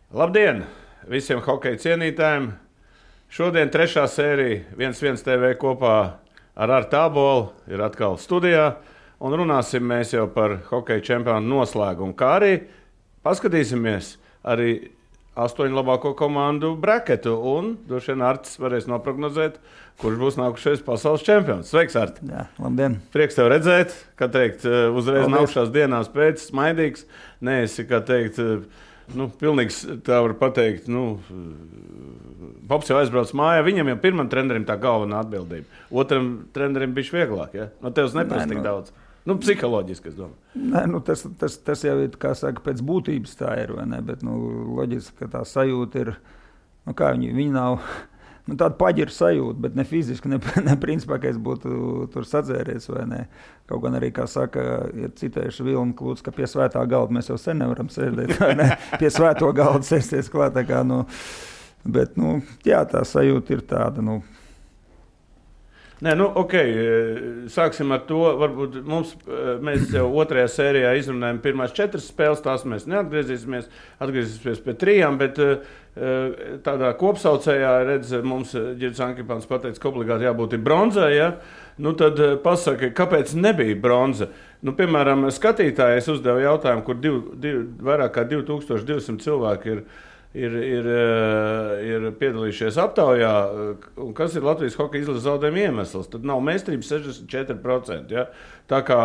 Labdien visiem hokeja cienītājiem! Šodien trešā sērija 1-1 TV kopā ar Artu Ābolu ir atkal studijā. Un runāsim mēs jau par hokeja čempionātu noslēgumu, kā arī paskatīsimies arī 8 labāko komandu braketu. Un droši vien Artis varēs noprognozēt, kurš būs nākušais pasaules čempions. Sveiks, Arti! Jā, labdien! Prieks tev redzēt, kā teikt, uzreiz nākušās dienās pēc, smaidīgs. Neesi, kā teikt, pilnīgs, tā var pateikt, Pops jau aizbrauc mājā, viņam jau pirmam trenerim tā galvenā atbildība. Otram trenerim bišķi vieglāk, ja? No tevs neprasa tik daudz. Psiholoģiski, es domāju. Tas jau ir, kā saka, pēc būtības tā ir, vai ne? Bet, loģiski, ka tā sajūta ir, viņi nav, tāda paģira sajūta, bet ne fiziski, ne principā, ka es būtu tur sadzēries, vai ne? Kaut gan arī, kā saka, ir citējuši Vilni Klūts, ka pie svētā galda mēs jau sen nevaram sēdēt, vai ne? Pie svēto galda sēsties klāt, tā kā, bet, jā, tā sajūta ir tāda, Nē, ok, sāksim ar to. Varbūt mēs jau otrajā sērijā izrunājam pirmās 4 spēles, tās mēs neatgriezīsimies, atgriezīsimies pie 3, bet tādā kopsaucējā, mums Ģirds Ankipāns pateica, ka obligāti jābūt ir bronzai, ja? Tad pasaka, kāpēc nebija bronza? Piemēram, skatītāji, es uzdevu jautājumu, kur vairāk kā 2200 cilvēki ir piedalījušies aptaujā, un kas ir Latvijas hokeja izlases zaudējuma iemesls. Tad nav meistarības 64%. Ja? Tā kā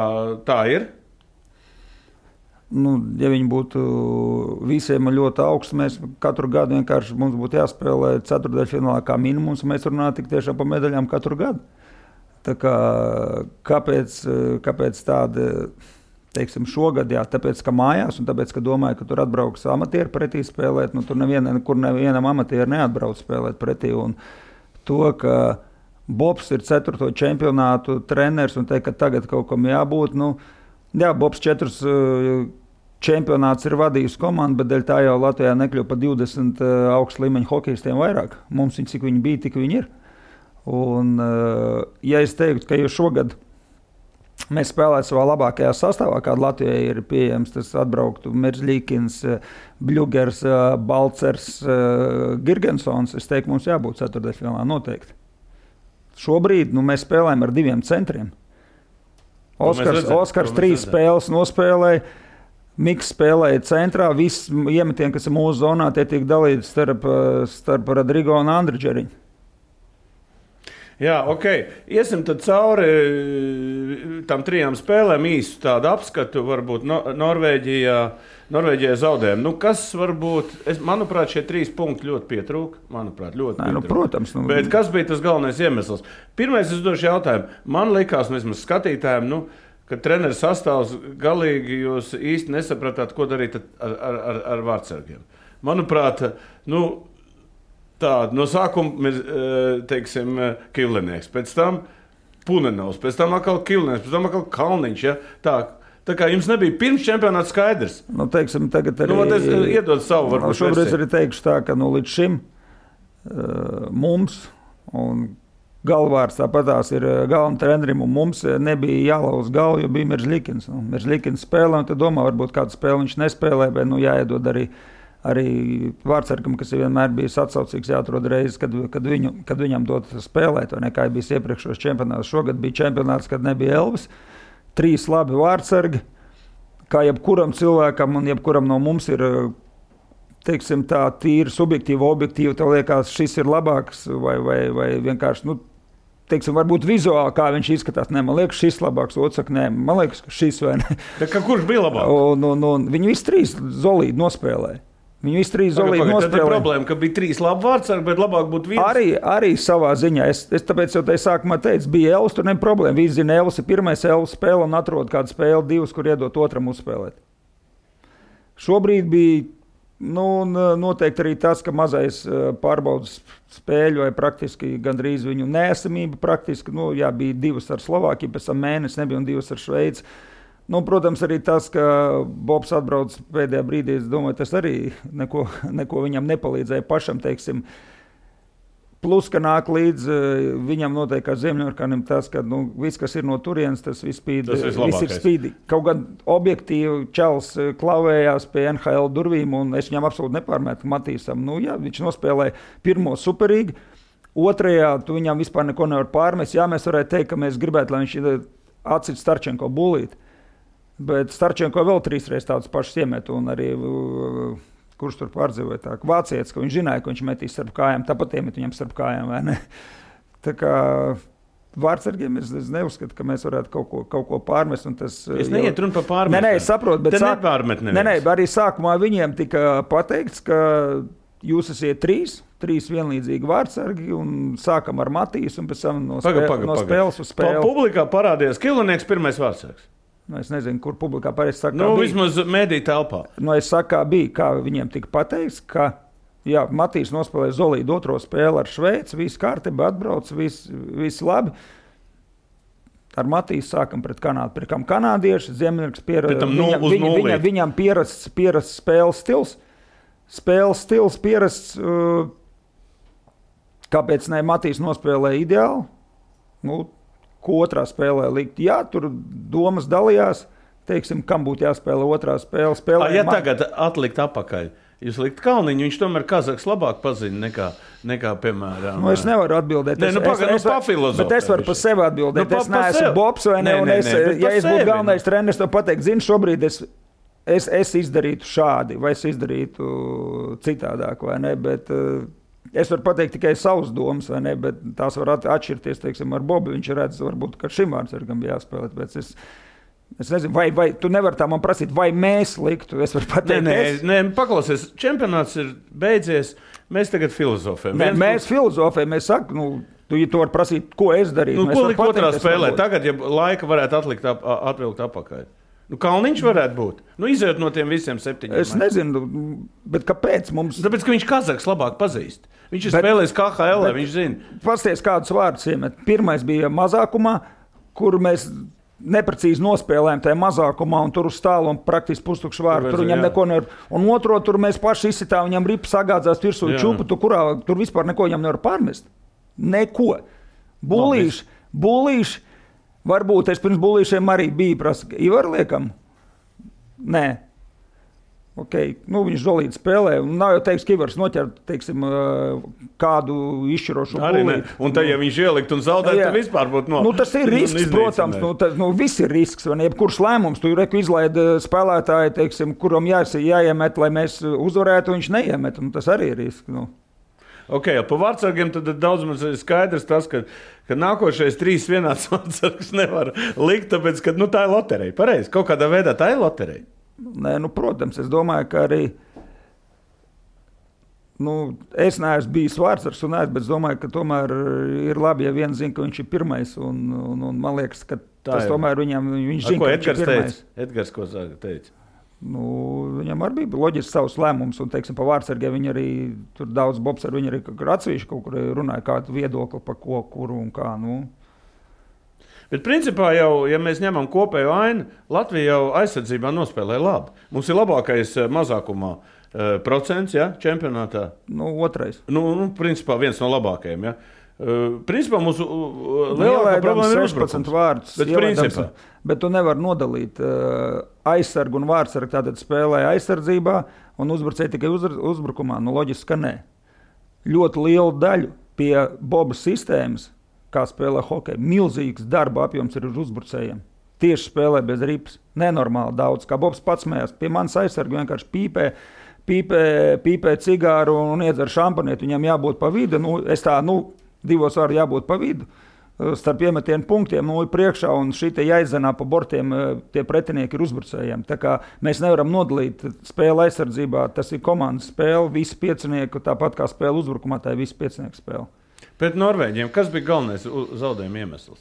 tā ir? Ja viņi būtu visiem ļoti augsts, mēs katru gadu vienkārši mums būtu jāspēlē ceturtdaļfinālā kā minimums, un mēs runājam tik tiešām par medaļām katru gadu. Tā kā, kāpēc tāda... Teiksim, šogad, jā, tāpēc, ka mājās, un tāpēc, ka domāju, ka tur atbrauks amatieri pretī spēlēt, tur nevienam amatierim neatbrauc spēlēt pretī, un to, ka Bobs ir 4. čempionātu treneris, un teikt, ka tagad kaut kam jābūt, jā, Bobs 4 čempionāts ir vadījis komandu, bet dēļ tā jau Latvijā nekļuva pa 20 augstu līmeņu hokejistiem vairāk. Mums viņi, cik viņi bija, tik viņi ir. Un, ja es teiktu, ka jau šogad mēs spēlētu savā labākajā sastāvā, kāda Latvijai ir pieejams, tas atbrauktu Merzlīkins, Bļugers, Balcers, Girgensons. Es teiktu, mums jābūt ceturtdaļfinālā noteikti. Šobrīd mēs spēlējam ar 2 centriem. Oskars 3 spēles nospēlēja, Miks spēlēja centrā, viss iemetieni, kas ir mūsu zonā, tie tiek dalīti starp Rodrigo un Andri Džeriņu. Jā, ok. Iesim tad cauri tam 3 spēlēm īstu tādu apskatu, varbūt Norvēģijā zaudējumi. Kas varbūt, manuprāt, šie 3 punkti ļoti pietrūka. Protams. Bet kas bija tas galvenais iemesls? Pirmais, es došu jautājumu. Man likās, vismaz skatītājiem, ka treneris sastāvs galīgi jūs īsti nesapratāt, ko darīt ar vārdsargiem. Manuprāt, tāda, no sākuma ir, teiksim, Kivlinieks, pēc tam Punenovs, pēc tam atkal Kivlinieks, pēc tam atkal Kalniņš, ja? Tā kā jums nebija pirms čempionāta skaidrs. Teiksim, tagad arī... Iedod savu, varbūt. Šobrīd arī teikšu tā, ka līdz šim mums, un galvārds tāpatās ir galvenam trenerim, un mums nebija jālauz galvu, jo bija Merzlīkins. Merzlīkins spēlē, un tad domā, varbūt kādu spēli viņš nespēlē, bet jāiedod arī vārdsargam, kas vienmēr bijis atsaucīgs, jāatrod reizes, kad viņam dot spēlēt, vai ne, kā bijis iepriekšos čempionātos. Šogad bija čempionāts, kad nebija Elvis. 3 labi vārdsargi, kā jebkuram cilvēkam un jebkuram no mums ir, teiksim tā, tīri subjektīvi, objektīvi, tev liekas, šis ir labāks, vai vienkārši, teiksim, varbūt vizuāli, kā viņš izskatās. Nē, man liekas, šis labāks, otrs saka, nē, man liekas, ka šis vai ne. Kurš bija labāk? Un viņi visi 3 zolīdi nospēlēja. Viņi visi 3 zolīdi nospēlēja. Tad ir problēma, ka bija 3 labi vārdsargi, bet labāk būtu viens. Arī savā ziņā. Es tāpēc jau te sākumā teicu, bija Elvis, tur nebija problēma. Visi zina, Elvis ir pirmais Elvis spēle un atrod kādu spēli 2, kur iedot otram uzspēlēt. Šobrīd bija, noteikti arī tas, ka mazais pārbaudas spēļu vai praktiski gandrīz viņu neesamība praktiski, bija 2 ar Slovākiju, pēc tam mēnesi nebija un 2 ar Šveici. Protams, arī tas, ka Bobs atbrauc pēdējā brīdī, es domāju, tas arī neko viņam nepalīdzēja pašam, teiksim, Plus, ka nāk līdz viņam noteikti kā Ziemļorkanim tas, ka viss, kas ir no turienes, tas viss ir spīdīgi. Kaut gan objektīvi Čels klavējās pie NHL durvīm, un es viņam absolūti nepārmetu Matīsam. Jā, viņš nospēlēja pirmo superīgi, otrajā tu viņam vispār neko nevar pārmest. Jā, mēs varētu teikt, ka mēs gribētu, lai viņš atcīt Starčenko bulīt, bet Starčenko vēl 3 reizes tādus pašus iemet, un arī... kurš tur pārdzīvoja tā, vācietis, ka viņš zināja, ka viņš metīs starp kājām, tāpat iemet viņam starp kājām, vai ne? Tā kā vārdsargiem es neuzskatu, ka mēs varētu kaut ko pārmest. Un tas, es neiet runu par pārmest. Nē, es saprotu, bet nepārmet neviens. Nē, arī sākumā viņiem tika pateikts, ka jūs esiet 3 vienlīdzīgi vārdsargi, un sākam ar Matīs, un pēc tam no spēles uz spēli. Publikā parādījās Kilonieks pirmais vārdsargs. Es nezinu, kur publikā pareizi saka, bija. Vismaz mediju telpā. Es saku, bija, kā viņiem tika pateikts, ka Matīs nospēlēja Zolīdu 2. spēli ar Šveici, viss kārtībā atbrauc, viss labi. Ar Matīs sākam pret Kanādu. Pret kam kanādieši, Ziemļorks viņam pierasts spēles stils. Spēles stils pierasts, kāpēc ne Matīs nospēlēja ideāli? Ko otrā spēlē likt. Jā, tur domas dalījās, teiksim, kam būtu jāspēlē otrā spēle. Ja tagad atlikt apakaļ, jūs likt Kalniņu, viņš tomēr Kazaks labāk pazina nekā piemēram. Es nevaru atbildēt. Bet es varu par sevi atbildēt. Es neesmu Bobs vai ne, ja es būtu galvenais treneris, to pateikt, šobrīd es izdarītu šādi, vai es izdarītu citādāk, vai ne, bet... Es varu pateikt tikai savus domas, vai ne, bet tās var atšķirties, teiksim, ar Bobu. Viņš redz, varbūt, ka šim vārdsargam bija jāspēlēt, bet es nezinu, vai tu nevari tā man prasīt, vai mēs liktu, es varu pateikt. Nē, paklausies, čempionāts ir beidzies, mēs tagad filozofējam. Mēs filozofējam, mēs sakam, tu var prasīt, ko es darītu. Ko likt otrā spēlē? Tagad, ja laika varētu atvilkt apakaļ. Kalniņš varētu būt. Izējot no tiem visiem 7. Es nezinu, bet kāpēc mums... Tāpēc, ka viņš Kazaks labāk pazīst. Viņš ir spēlējis KHL, viņš zina. Pasties, kādus vārdus iemet. Pirmais bija mazākumā, kur mēs neprecīzi nospēlējām tajā mazākumā, un tur uz tālu un praktiski pustukšu vārdu. Tur viņam neko nevar... Un otro, tur mēs paši izsitām, viņam ripa sagādzās virsū čupu, tur vispār neko viņam nevar pārmest. Neko. Bulīši. Varbūt es pirms bulīšiem arī biju prasa, Ivar liekam? Nē. Okay. Viņš Zolīdu spēlē, un nav jau teiks, ka Ivars noķer, teiksim, kādu izšķirošu bulīti. Un tad, ja viņš ielikt un zaudēt, tad vispār būtu tas ir risks, protams. Viss ir risks, vai ne? Jebkurš lēmums, tu izlaid spēlētāji, teiksim, kuram jāiemet, lai mēs uzvarētu, viņš neiemet, un tas arī ir risks. Pa vārdsargiem tad daudz maz ir skaidrs tas, ka nākošais 3 vienāds vārdsargs nevar likt, tāpēc, ka tā ir loterija. Pareizi, kaut kādā veidā tā ir loterija. Nē, protams, es domāju, ka arī es neesmu bijis vārdsargs, bet es domāju, ka tomēr ir labi, ja viens zina, ka viņš ir pirmais, un man liekas, ka tas tomēr viņš zina, ka viņš ir pirmais. Edgars, ko teica? Viņam arī bija loģisks savs lēmums, un, teiksim, pa vārdsargiem viņi arī, tur daudz Bobs ar viņu arī atsevišķi kaut kur runāja, kādu viedokli par ko, kuru un kā, Bet principā jau, ja mēs ņemam kopējo ainu, Latvija jau aizsardzībā nospēlē labi. Mums ir labākais mazākumā procents, čempionātā. Otrais. Principā viens no labākajiem, Principā mūsu lielākā problēma ir 16 vārdus. Bet tu nevari nodalīt aizsargu un vārdsargu. Tātad spēlē aizsardzībā un uzbrucēji tikai uzbrukumā. Loģiski, ka nē. Ļoti lielu daļu pie Boba sistēmas, kā spēlē hokeju, milzīgs darba apjoms ir uz uzbrucējiem. Tieši spēlē bez ripas. Nenormāli daudz. Kā Bobs pats mējās, pie manas aizsargu vienkārši pīpē cigāru un iedzer šampanieti. Viņam jābūt pa vidu. 2 vārdi jābūt pa vidu. Starp iemetienu punktiem priekšā un šī te jāizzenā pa bortiem tie pretinieki ir uzbrucējiem. Tā kā mēs nevaram nodalīt spēli aizsardzībā, tas ir komandas spēle, visi piecinieku, tāpat kā spēle uzbrukumā, tā ir visi piecinieku spēle. Pret Norvēģiem, kas bija galvenais zaudējuma iemesls?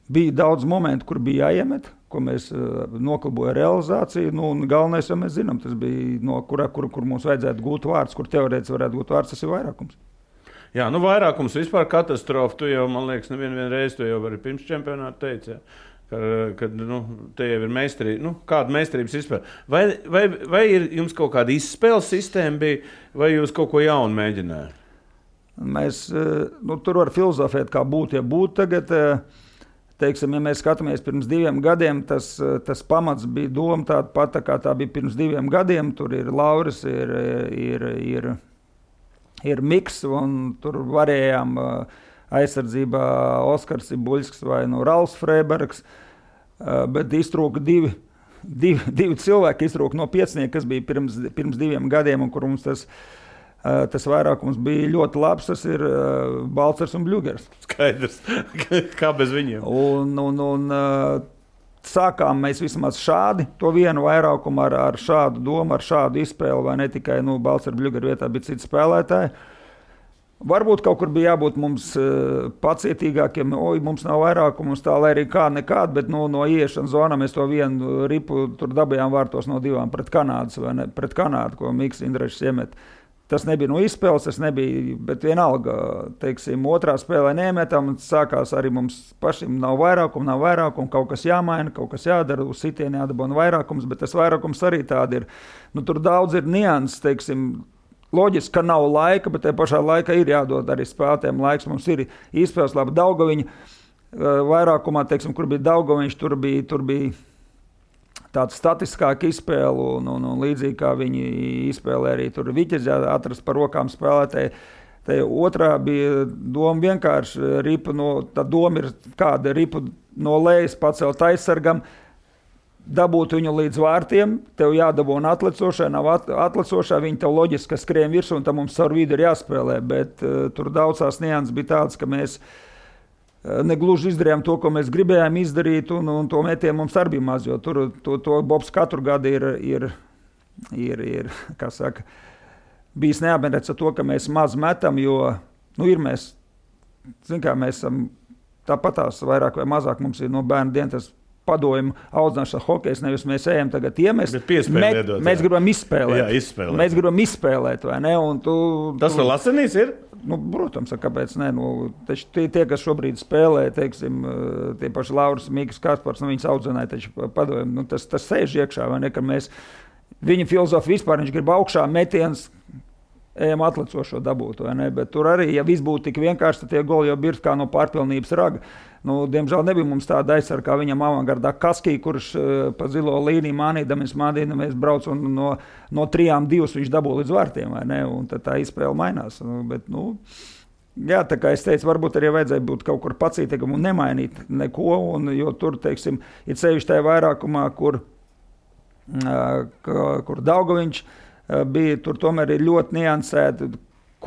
Bija daudz momentu, kur bija jāiemet, ko mēs noklabojam realizāciju. Galvenais, jau mēs zinām, tas bija no kur mums vajadzētu gūt vārds, kur teorētiski varētu gūt vārds, tas ir vairākums. Vairākums vispār katastrofa. Tu jau, man liekas, nevienu reizi to jau arī pirms čempionāta teici. kad te jau ir meistarība, kāda meistarības izspēle. Vai ir jums kaut kāda izspēles sistēma bija, vai jūs kaut ko jaunu mēģinājāt? Mēs tur var filozofēt, kā būtu, ja būtu tagad. Teiksim, ja mēs skatāmies pirms 2 gadiem, tas pamats bija doma tāda pata, kā tā bija pirms 2 gadiem. Tur ir Lauris, ir Miks, un tur varējām aizsardzībā Oskars Buļsks vai Ralfs Freibergs, bet iztrūka divi cilvēki, iztrūka no piecinieka, kas bija pirms 2 gadiem, un kur mums tas vairākums bija ļoti labs, tas ir Balcers un Bļugers. Skaidrs, kā bez viņiem. Un sākām mēs vismaz šādi, to vienu vairākumu ar šādu domu, ar šādu izspēli, vai ne tikai Balcers un Bļugers vietā bija citi spēlētāji. Varbūt kaut kur bija jābūt mums pacietīgākiem, mums nav vairākumu, mums tā, lai arī kāda nekāda, bet no ieiešanas zonā mēs to vienu ripu tur dabījām vārtos no 2 pret Kanādas, vai ne, pret Kanādu, ko Miks Indrešs iemet. Tas nebija no izspēles, tas nebija, bet vienalga, teiksim, otrā spēlē nemetam, sākās arī mums pašiem nav vairākumu, kaut kas jāmaina, kaut kas jādara, uz sitieni jādabona vairākums, bet tas vairākums arī tādi ir. Tur daudz ir nianses, teiksim, loģiski, ka nav laika, bet tajā pašā laikā ir jādod arī spēlētājiem laiks. Mums ir izspēles labi Daugaviņa vairākumā, teiksim, kur bija Daugaviņš, tur bija tāda statiskāka izspēle, un līdzīgi kā viņi izspēlē arī tur Viķes atrast par rokām spēlētāji. Te otrā bija doma vienkārši ripu tā doma ir kāda ripu no lejas pacelt aizsargam, dabūt viņu līdz vārtiem, tev jādabūna atlecošai, nav atlecošai, viņi tev loģiski skrien virsū, un tam mums caur vidu ir jāspēlē, bet tur daudzās nianses bija tāds, ka mēs negluži izdarījām to, ko mēs gribējām izdarīt, un to metienu mums arī bija maz, jo to Bobs katru gadu ir kā saka, bijis neapmierināts ar to, ka mēs maz metam, jo, ir mēs, mēs esam tāpatās vairāk vai mazāk, mums ir no bērnu dienu tas padojumu audzināšana hokejs, nevis mēs ejam tagad iemest. Mēs gribam izspēlēt. Jā, izspēlēt. Mēs gribam izspēlēt, vai ne? Un tas vēl Lasenīs ir? Protams, kāpēc ne? Taču tie, kas šobrīd spēlē, teiksim, tie paši Lauris, Mīgas, Kaspars, viņas audzināja, taču padojumu, tas sēž iekšā, vai ne? Ka mēs, viņa filozofija vispār, viņš grib augšā metiens, ejam atlecošo dabūt, vai ne? Bet tur arī, ja viss būtu tik vienkārši, tad tie goli jau birst kā no pārpilnības raga. Diemžēl nebija mums tāda aizsarga, kā viņam avangardā Kaskī, kurš pa zilo līniju mānīdamies brauc un no 3-2 viņš dabū līdz vārtiem, vai ne? Un tad tā izspēle mainās. Bet, jā, tā kā es teicu, varbūt arī vajadzēja būt kaut kur pacītīgam un nemainīt neko, jo tur, teiksim, ir sevišķi tajā vairākumā, kur Daugaviņš bija, tur tomēr ir ļoti niansēti,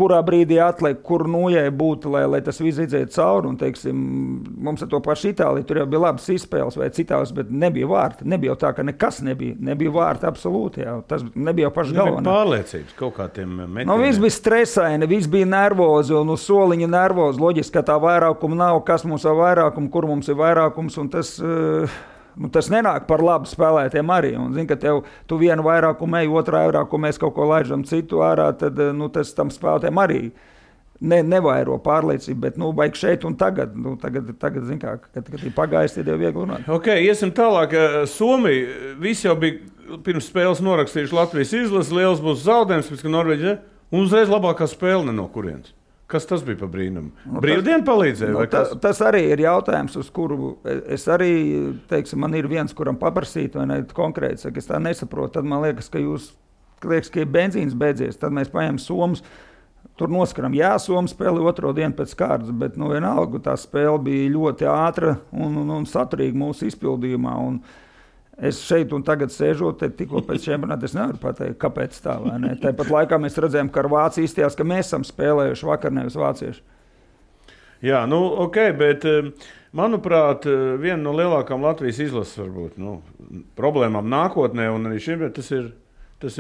kurā brīdī atliek, kur nojai būtu, lai tas viss izdzētu cauri. Un, teiksim, mums ar to pašu Itāliju, tur jau bija labas izspēles vai citās, bet nebija vārti. Nebija jau tā, ka nekas nebija. Nebija vārti absolūti. Jā. Tas nebija jau paši galvenais. Pārliecības kaut kā tiem metieniem. Viss bija stresaini, viss bija nervozi un uz soliņa nervozi. Loģiski, ka tā vairākuma nav, kas mums ir vairākums, kur mums ir vairākums, un tas nenāk par labu spēlētiem arī. Un, zin, ka tu vienu vairākumu ej, otrā vairākumu mēs kaut ko laižam citu ārā, tad tas tam spēlētiem arī nevairo pārliecību, bet vajag šeit un tagad. Tagad zin kā, kad ir pagājis, tad jau viegli runāt. Ok, iesim tālāk. Somija, visi jau bija pirms spēles norakstījuši Latvijas izlasi, liels būs zaudējums, pēc ka Norvēģija, un uzreiz labākā spēle no kurienes. Kas tas bija par brīnumu? Brīvdienu palīdzēja? Tas arī ir jautājums, uz kuru es arī, teiksim, man ir viens, kuram paprasīt, vai ne konkrēti, saka, es tā nesaprotu, tad man liekas, ka ir benzīns beidzies, tad mēs paņem Somus, tur noskaram, jā, Somu spēli otro dienu pēc kārtas, bet, vienalga, tā spēle bija ļoti ātra un saturīga mūsu izpildījumā, un es šeit un tagad sēžot, tikko pēc čempionāta es nevaru pateikt, kāpēc tā, vai ne? Tāpat laikā mēs redzējām, ka ar Vāciju izstījās, ka mēs esam spēlējuši vakar, nevis vācieši. Jā, ok, bet manuprāt, viena no lielākām Latvijas izlases varbūt, problēmām nākotnē un arī šim, tas ir,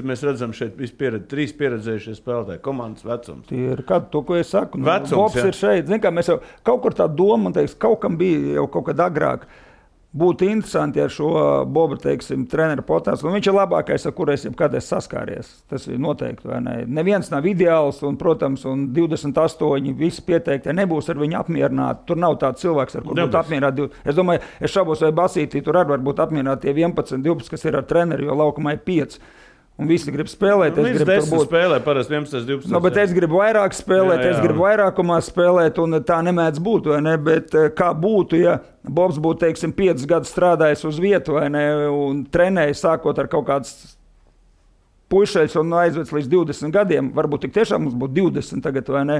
mēs redzam šeit trīs pieredzējušie spēlētāji, komandas vecums. Tie ir to, ko es saku. Vecums, Bobs ir šeit. Zin kā, mēs jau kaut kur tā doma, man teiks, kaut kam bija jau kaut kad agrāk. būtu interesanti ar šo Bobu, teiksim, treneru potāstu. Un viņš ir labākais, ar kur es jebkad esmu saskāries. Tas ir noteikti, vai ne? Neviens nav ideāls, un, protams, un 28 visi pieteikti nebūs ar viņu apmierināti. Tur nav tāds cilvēks, ar kur būtu apmierināti. Es domāju, es šaubos, vai Basītī tur arī var būt apmierināti tie 11, 12, kas ir ar treneri, jo laukumā ir 5. Un visi grib spēlēt. Es gribu tur spēlē, parasti 11, 12. No, bet es gribu vairāk spēlēt, es gribu vairākumā spēlēt, un tā nemēdz būt, vai ne? Bet kā būtu, ja Bobs būtu, teiksim, 5 gadus strādājis uz vietu, vai ne, un trenējis sākot ar kaut kāds puišeļs un aizvēc līdz 20 gadiem, varbūt tik tiešām mums būtu 20 tagad, vai ne,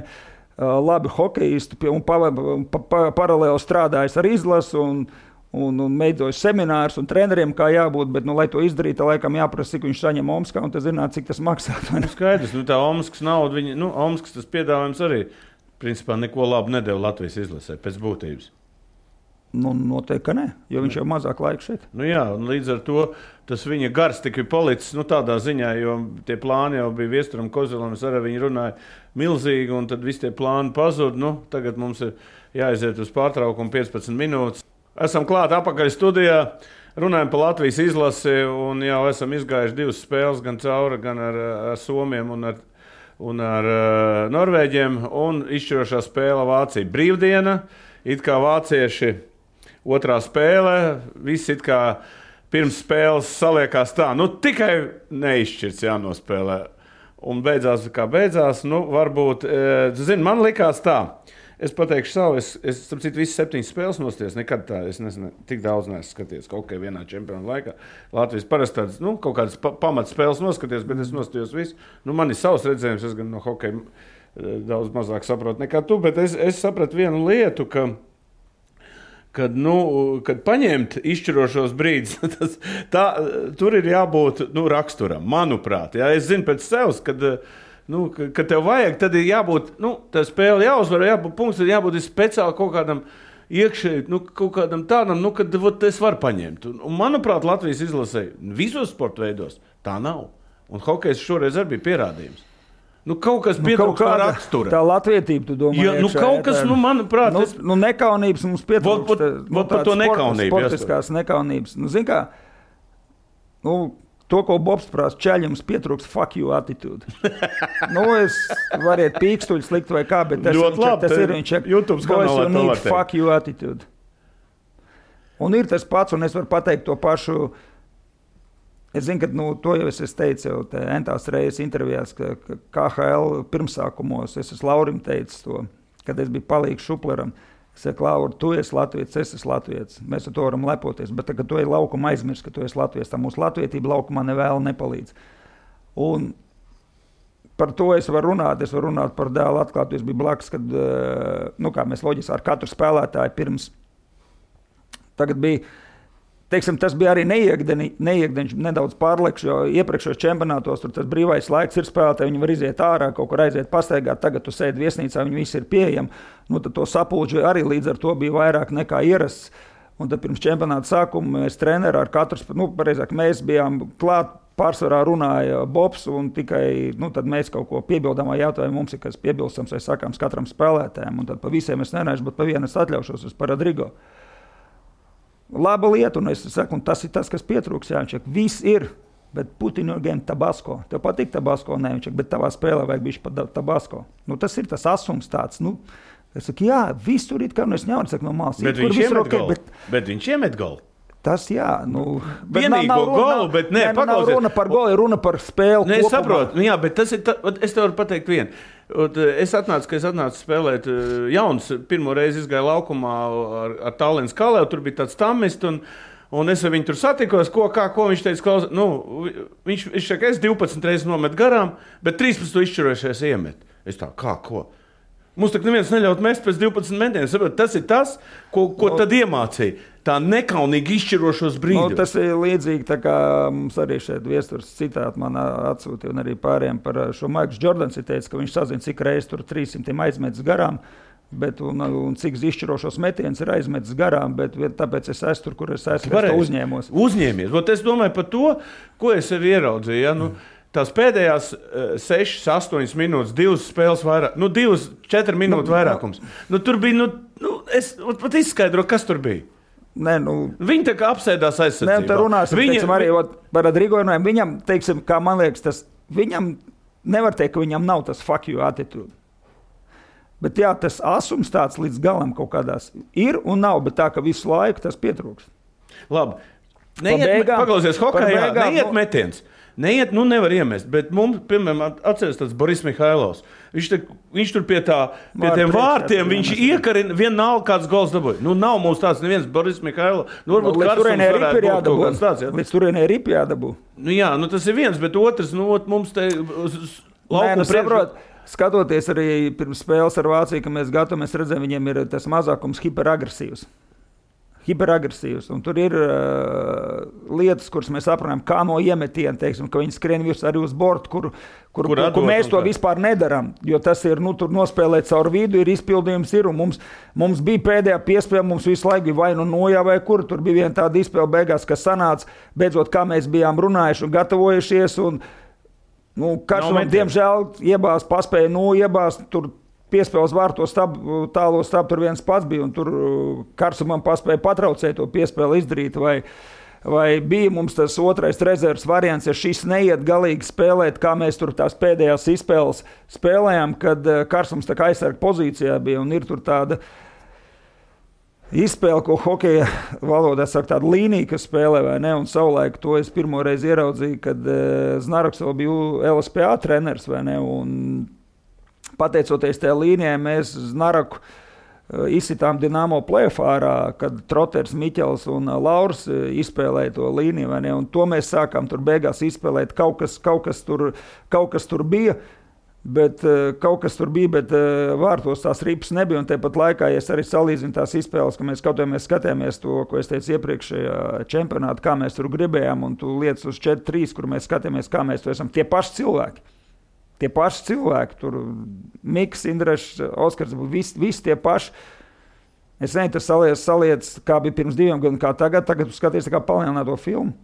labi hokejisti, un paralēli strādājis ar izlasu, un veidojas seminārus un treneriem, kā jābūt, bet, lai to izdarītu, laikam jāprasa, cik viņš saņem Omskā, un tas zināt, cik tas maksā. Skaidrs, tā Omskas nauda, Omskas tas piedāvājums arī, principā, neko labu nedeva Latvijas izlasē, pēc būtības. Noteikti, ka ne, jo viņš jau mazāk laika šeit. Jā, un līdz ar to tas viņa gars tika policis, tādā ziņā, jo tie plāni jau bija Viesturam Kozelam, es arī viņi runāja milzīgi, un tad visi tie plāni pazud. Tagad mums ir jāaiziet uz pārtraukumu 15 minūtes. Esam klāt apakaļ studijā, runājam par Latvijas izlasi un jau esam izgājuši 2 spēles, gan cauri, gan ar Somiem un ar Norvēģiem. Un izšķirošā spēle Vācija brīvdiena, it kā vācieši otrā spēle, visi it kā pirms spēles saliekās tā, tikai neizšķirts jānospēlē. Un beidzās, kā beidzās, varbūt, man likās tā. Es pateikšu savu, es starp citu visas 7 spēles nostājos, nekad tā, es tik daudz neesmu skaties kaut kā vienā čempionu laikā. Latvijas parasti tādas, kaut kādas pamatspēles noskaties, bet es nostājos visu. Man ir savs redzējums, es gan no hokeja daudz mazāk saprotu nekā tu, bet es sapratu vienu lietu, kad paņemt izšķirošos brīdus, tur ir jābūt raksturam, manuprāt. Jā, es zinu pēc sevs, kad tev vajag, tad ir jābūt, tā spēle jāuzvar, jābūt punkts, tad jābūt speciāli kaut kādam iekšēji, kaut kādam tādam, kad es varu paņemt. Un manuprāt, Latvijas izlasē visos sporta veidos tā nav. Un hokejs šoreiz arī bija pierādījums. Kaut kas pietrūkst tā rakstura. Tā latvietība, tu domā, iekšā. Kaut kas, manuprāt... Nekaunības mums pietrūkst. Par to nekaunību. Sportiskās nekaunības. Zin kā, to, ko Bobs prasa, čaļums pietrūks fuck you attitude. Es variet pīkstuļus likt vai kā, bet tas ir viņš. YouTube kanālā to var teikt. Fuck you attitude. Un ir tas pats, un es varu pateikt to pašu. Es zinu, ka to jau es teicu jau entās reizes intervijās, ka KHL pirmsākumos es esmu Laurim teicis to, kad es biju palīgs Šupleram. Es saku, Laura, tu esi latvietis, es esmu latvietis. Mēs ar to varam lepoties, bet kad tu ej laukuma aizmirst, ka tu esi latvietis, tā mūsu latvietība laukumā nevēl nepalīdz. Un par to es varu runāt par dēlu atklātu. Es biju blakus, kad, kā mēs loģiski ar katru spēlētāju pirms. Tagad bija, teiksim, tas bija arī neiekdeņš nedaudz pārlekš, jo iepriekšējos čempionātos tur tas brīvais laiks ir spēlētāji, viņi var iziet ārā, kaut kur aiziet pastaigāt, tagad tu sēdi viesnīcā, viņi visi ir pieejami, tad to sapulģi arī līdz ar to bija vairāk nekā ierasts, un tad pirms čempionāta sākuma mēs treneri ar katru, pareizāk, mēs bijām klāt, pārsvarā runāja Bobs, un tikai, tad mēs kaut ko piebildām vai jautājumu, mums ir kas piebilstams vai sakāms katram spēlētājiem, un tad pa visiem es nerāžu, bet pa vienu es atļaušos, par Rodrigo. Laba lieta, un es saku, un tas ir tas, kas pietrūks, Jāņčak. Viss ir, bet Putin again Tabasko. Tev patīk Tabasko, ne, Jāņčak, bet tavā spēlē vajag bišķi pa Tabasko. Tas ir tas asums tāds, es saku, jā, viss tur ir, kā, es nevaru saku no malas. Bet viņš iemet golu. Bet viņš iemet golu. Tas, jā, vienīgo golu, bet ne, paklausies. Nav runa par golu, ir runa par spēli kopumā. Es saprotu, jā, bet tas ir, es tev varu pateikt vienu. Es atnācu spēlēt jauns, pirmo reizi izgāju laukumā ar Tallinas Kalēvu, tur bija tāds tamists, un es ar viņu tur satikos, ko viņš teica, viņš saka, es 12 reizes nomet garām, bet 13 izšķirojušies iemet. Es tā, ko? Mums tak neviens neļaut mest pēc 12 metieniem. Tas ir tas, ko tad iemācīja. Tā nekaunīgi izšķirošos brīdus. Tas ir līdzīgi, tā kā mums arī šeit Viesturs citāti man atsūtīja un arī pārējiem par šo Maikls Jordans ir teicis, ka viņš sazina, cik reiz tur 300 aizmetis garām, bet un cik izšķirošos metienus ir aizmetis garām, bet tāpēc es esmu tur, kur es esmu, es to uzņēmos. Uzņēmies. Es domāju par to, ko es sev ieraudzīju. Ja? Tās pēdējās 6, 8 minūtes, 2 spēles vairāk, 2, 4 minūtes vairākums. Tur bija, es pat izskaidroju, kas tur bija. Viņi tā kā apsēdās aizsardzībā. Nē, tā runāsim, teiksim, arī par Rodrigo runājam. Viņam, teiksim, kā man liekas, viņam nevar teikt, ka viņam nav tas fuck you attitude. Bet jā, tas asums tāds līdz galam kaut kādās ir un nav, bet tā, ka visu laiku tas pietrūks. Labi. Paklausies hokejā, neiet metiens. Neiet, nevar iemest, bet mums, piemēram, atceries tāds Boris Mihailovs. Viņš tur pie tiem vārtiem, viņš iekarina, vienalga kāds gols dabūja. Nav mums tāds neviens Boris Mihailovs. Varbūt Karsums varētu būt kaut kāds tāds. Līdz turienē ripi jādabū. Jā, tas ir viens, bet otrs, mums te lauku saprot. Skatoties arī pirms spēles ar Vāciju, ka mēs gatamies redzēt, viņiem ir tas mazākums hiperagresīvs. Un tur ir lietas, kuras mēs aprunājam, kā no iemetiena, teiksim, ka viņi skrien virs arī uz bortu, kur mēs to vispār nedaram. Jo tas ir, tur nospēlēt caur vidu, ir izpildījums, ir, un mums bija pēdējā piespēle, mums visu laiku bija vai nojā vai kur. Tur bija viena tāda izpēle beigās, kas sanāca, beidzot, kā mēs bijām runājuši un gatavojušies, un Karsumam, diemžēl, paspēja iebāzt, tur piespēles vārtos tālo stabu, tur viens pats bija, un tur Karsumam paspēja patraucēt to piespēli izdarīt, vai bija mums tas otrais rezerves variants, ja šis neiet galīgi spēlēt, kā mēs tur tās pēdējās izspēles spēlējām, kad Karsums tā kā aizsarga pozīcijā bija, un ir tur tāda izspēle, ko hokeja valodā saka, tāda līnija, kas spēlē, vai ne? Un savulaik to es pirmo reizi ieraudzīju, kad Znaraks vēl bija LSPA treneris, vai ne? Un pateicoties tajā līnijai, mēs Znaraku izsitām Dinamo play-offā ārā, kad Troters, Miķels un Lauris izspēlēja to līniju, vai ne? Un to mēs sākām tur beigās izspēlēt. Kaut kas tur bija. Bet vārtos tās ripas nebija, un tāpat laikā, ja es arī salīdzinu tās izspēles, ka mēs skatījāmies to, ko es teicu iepriekšējā čempionātā, kā mēs tur gribējām, un tu lietas uz 4-3, kur mēs skatījāmies, kā mēs to esam. Tie paši cilvēki, tur Miks, Indrešs, Oskars, visi tie paši. Es nezinu, tas saliec, kā bija pirms 2 gadiem, kā tagad tu skaties kā palielināto filmu.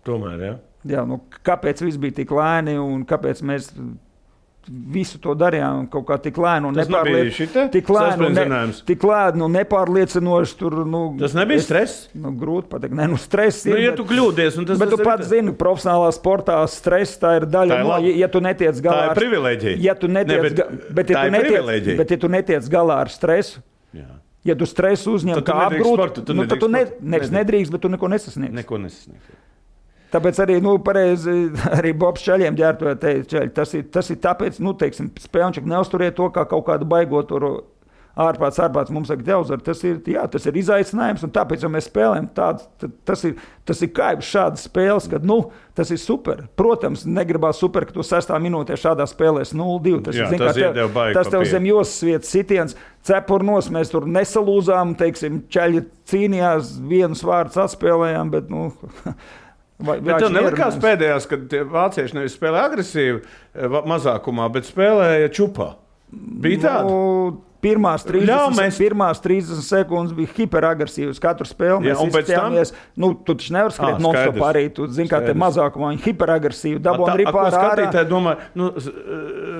Tomēr, jā. Jā, kāpēc viss bija tik lēni, un kāpēc mēs visu to darījām kaut kā tik lēni un nepārliecinoši tur, tas nebija stress? Grūti pateikt, stress ir. Ja tu kļūdies, un tas bet tu pats zini, profesionālā sportā stress tā ir daļa, ja tu netiec galā. Tā ir privileģija. Bet ja tu netiec galā ar stresu, ja tu stresu uzņem kā apgrūti, tad tu nedrīkst, bet tu neko nesasniegsi. Tāpēc arī, pareizi, arī Bobs Čaļiem ģērtoja teica, tas ir tāpēc, teiksim, spēlniņš neuzturiet to kā kaut kādu baigot ārpāts mums saka, Teuzar, tas ir izaicinājums, un tāpēc, ja mēs spēlējam tas ir kaibs šādas spēles, kad, tas ir super. Protams, negribās super, ka tu 6. minūtē šādā spēlēs 0-2. Tas tev zem josas vietas sitiens, cepurnos, mēs tur nesalūzām, teiksim, Čaļi cīnījās, vienus vārdus atspēlējām, bet, Bet tev nelikās pēdējās, kad tie vācieši nevis spēlē agresīvi mazākumā, bet spēlēja čupā? Bija tāda? Pirmās 30 sekundes bija hiperagresīvas. Katru spēli mēs izskatījāmies. Tu taču nevar skriet non-stop arī. Tu zini, kā te mazākumā viņi hiperagresīvi dabūja ripā ārā. Skatītāji domā,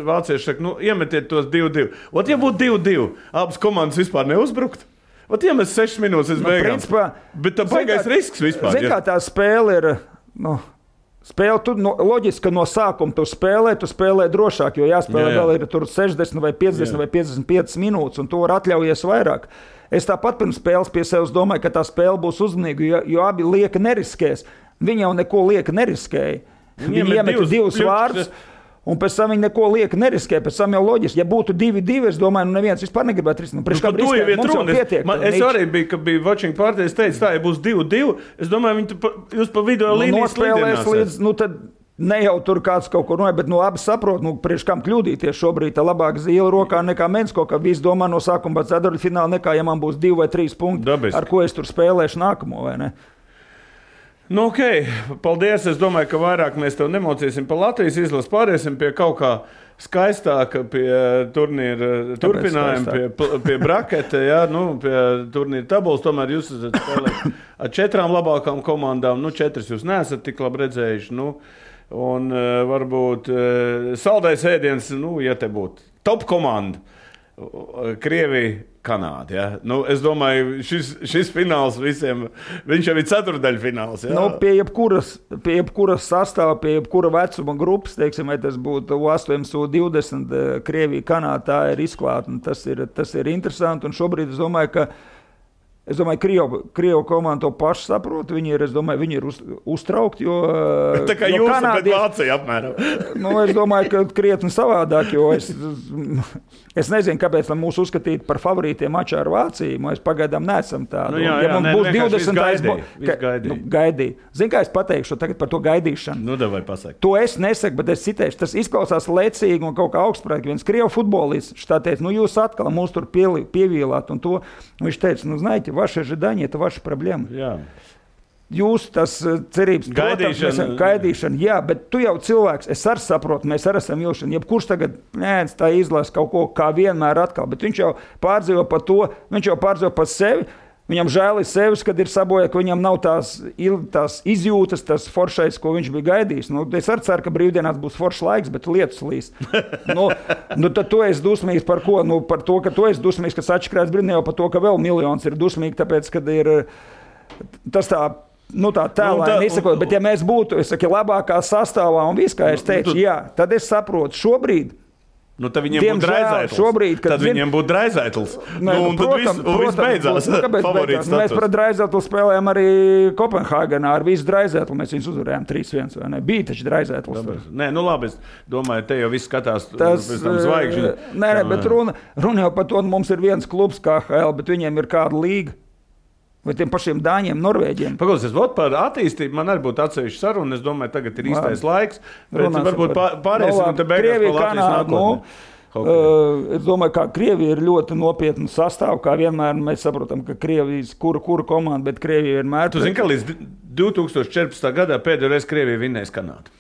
vācieši saka, iemetiet tos 2-2. Ja būtu 2-2, abas komandas vispār neuzbrukt? Ja mēs 6 minūtes beigām. Bet tā baigais risks vispār. Zini, kā tā spēle ir... Spēle, loģiski, ka no sākuma tu spēlē drošāk, jo jāspēlē vēl ir tur 60 vai 50 vai 55 minūtes, un tu var atļaujies vairāk. Es tāpat pirms spēles pie sevis domāju, ka tā spēle būs uzmanīga, jo abi lieka neriskēs. Viņi jau neko lieka neriskēja. Viņi iemeta 2 vārdus. Un pēc tam viņi neko lieka neriskē, pēc tam jau loģiski. Ja būtu 2-2, es domāju, neviens vispār negribētu risināt. Es arī biju, kad bija watching party, es teicu, ja būs 2-2, es domāju, jūs pa video līnijas nospēlēs līdz, tad ne jau tur kāds kaut ko noja, bet abi saprot, priekš kam kļūdīties šobrīd, tā labāk zīle rokā nekā Mensko, ka visi domā no sākuma pēc ceturtfināla nekā, ja man būs 2 vai 3 punkti, dabiski. Ar ko es tur spēlēšu nākamo, vai ne? Ok, paldies. Es domāju, ka vairāk mēs tev nemocīsim par Latvijas izlases, pāriesim pie kaut kā skaistāka, pie turnīra turpinājuma, pie braketa, pie turnīra tabulas. Tomēr jūs esat spēlējuši ar 4 labākām komandām, 4 jūs neesat tik labi redzējuši. Un varbūt saldais ēdiens, ja te būtu top komanda, Krievija, Kanāda. Ja? Nu, es domāju, šis fināls visiem, viņš jau ir ceturdaļfināls. Ja? Nu, pie jebkuras sastāva, pie jebkura vecuma grupas, teiksim, vai tas būtu U18, U20, Krievija, Kanāda, tā ir izklāta. Tas ir interesanti, un šobrīd es domāju, ka Krievu komanda to pašu saprot. Viņi ir uztraukti, jo tā kā jūs pret Vāciju apmēram. Es domāju, ka krietni savādāk, jo es nezinu, kāpēc mūs uzskatīt par favorītiem mačā ar Vāciju. Mēs pagaidām neesam tādi. Būs 20. Gaidīja. Zini, kā es pateikšu tagad par to gaidīšanu? Davai pasaki. To es nesaku, bet es citēšu. Tas izklausās lecīgi un kaut kā augstprātīgi. Viens Krievu futbolists tā teica, jūs atkal mūs tur pievīlāt un to. Viņš teica, знаете, ваши ожидания – это ваша проблема. Jā. Jūs tas cerības, gaidīšana, jā, bet tu jau cilvēks, es arī saprotu, mēs arī esam ilšana. Jebkurš tagad tā izlasa kaut ko kā vienmēr atkal, bet viņš jau pārdzīvo par to, viņš jau pārdzīvo par sevi. Viņam žēl ir sevis, kad ir sabojā, ka viņam nav tās izjūtas, tas foršais, ko viņš bija gaidījis. Es arī ceru, ka brīvdienās būs foršs laiks, bet lietus līs. Tad tu esi dusmīgs par ko? Par to, ka tu esi dusmīgs, kas atšķirās brīvdienā, jau par to, ka vēl miljons ir dusmīgi, tāpēc, kad ir tas tā tēlēni izsakot. Bet ja mēs būtu, labākā sastāvā un viss, kā es teicu, jā, tad es saprotu šobrīd. Tad viņiem būtu Draizētls. Tad viņiem būtu Draizētls. Un tad viss beidzās. Mēs par Draizētlu spēlējām arī Kopenhāgenā ar visu Draizētlu. Mēs viņus uzvarējām 3-1, vai ne? Bija taču Draizētls. Nē, labi, es domāju, te jau viss skatās pēc tam zvaigžņi. Nē, bet runa jau par to, mums ir viens klubs KHL, bet viņiem ir kāda līga. Vai tiem pašiem Dāņiem, Norvēģiem. Paklausies, par attīstību man arī būtu atsevišķa saruna. Es domāju, tagad ir īstais laiks. Varbūt pārēsim un te beigās par Latvijas nākotni. Es domāju, ka Krievija ir ļoti nopietna sastāv, kā vienmēr mēs saprotam, ka Krievijas kura komanda, bet Krievija vienmēr... Tu zini, ka līdz 2014. gadā pēdējo reizi Krievija vinnēs Kanādu?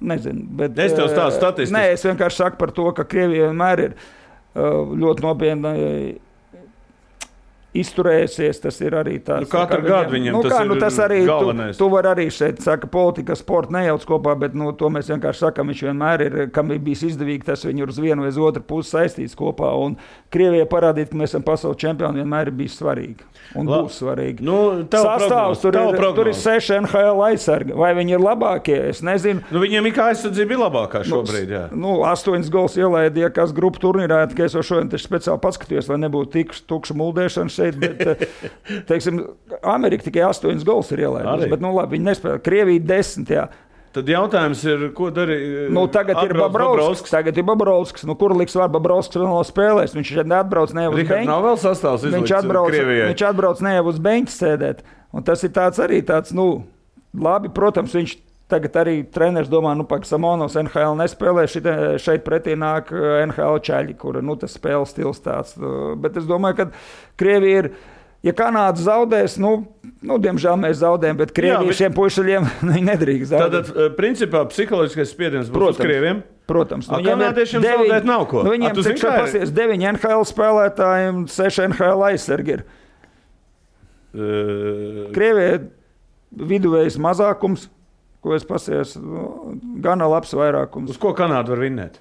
Nezinu, bet... Es tev stāstu statistiku. Nē, es vienkārši saku par to, ka Krievija vienmēr ir ļoti nopietna... izturējusies, tas ir arī tāds... Katru gadu viņam tas ir galvenais. Tu vari arī šeit, saka, politika, sporta nejauc kopā, bet to mēs vienkārši sakam, viņš vienmēr ir, kam ir bijis izdevīgi, tas viņu uz vienu vai uz otru pusi saistīts kopā, un Krievijai parādīt, ka mēs esam pasaules čempioni, vienmēr ir bijis svarīgi, un būs svarīgi. Sastāvs, tur ir 6 NHL aizsargi, vai viņi ir labākie, es nezinu. Viņiem ir kā aizsardzība ir labākā šobrīd, jā. 8 gols ielaidīja, kas grupu turnīrā, ka es jau šodien taču speciāli paskatījos, lai nebūtu tukša muldēšana šeit, bet, teiksim, Amerika tikai 8 gols ir ielaidusi, bet, labi, viņi nespēlē. Krievija 10, jā. Tad jautājums ir, ko darīja? Tagad ir Bobrovskis. Kur liks var Bobrovskis vēl spēlēs? Viņš šeit neatbrauc ne uz beņķi. Nav vēl sastāvs izlikts Krievijai. Viņš atbrauc ne uz beņķi sēdēt. Un tas ir tāds, labi, protams, viņš tagad arī treneris domā, ka Samonovs NHL nespēlē, šeit pretī nāk NHL čaļi, kura, tas spēles stils tāds. Bet es domāju, ka Krievija ir, ja Kanāda zaudēs, diemžēl mēs zaudējam, bet Krievija šiem puišaļiem nedrīkst zaudēt. Tātad, principā, psiholoģiskais spiediens būs uz Krieviem? Protams. Kanādiešiem zaudēt nav ko. Viņiem pasies 9 NHL spēlētājiem, 6 NHL aizsargi ir. Krievija viduvējs mazākums, ko es pasies, gana labs vairākums. Uz ko Kanāda var vinnēt?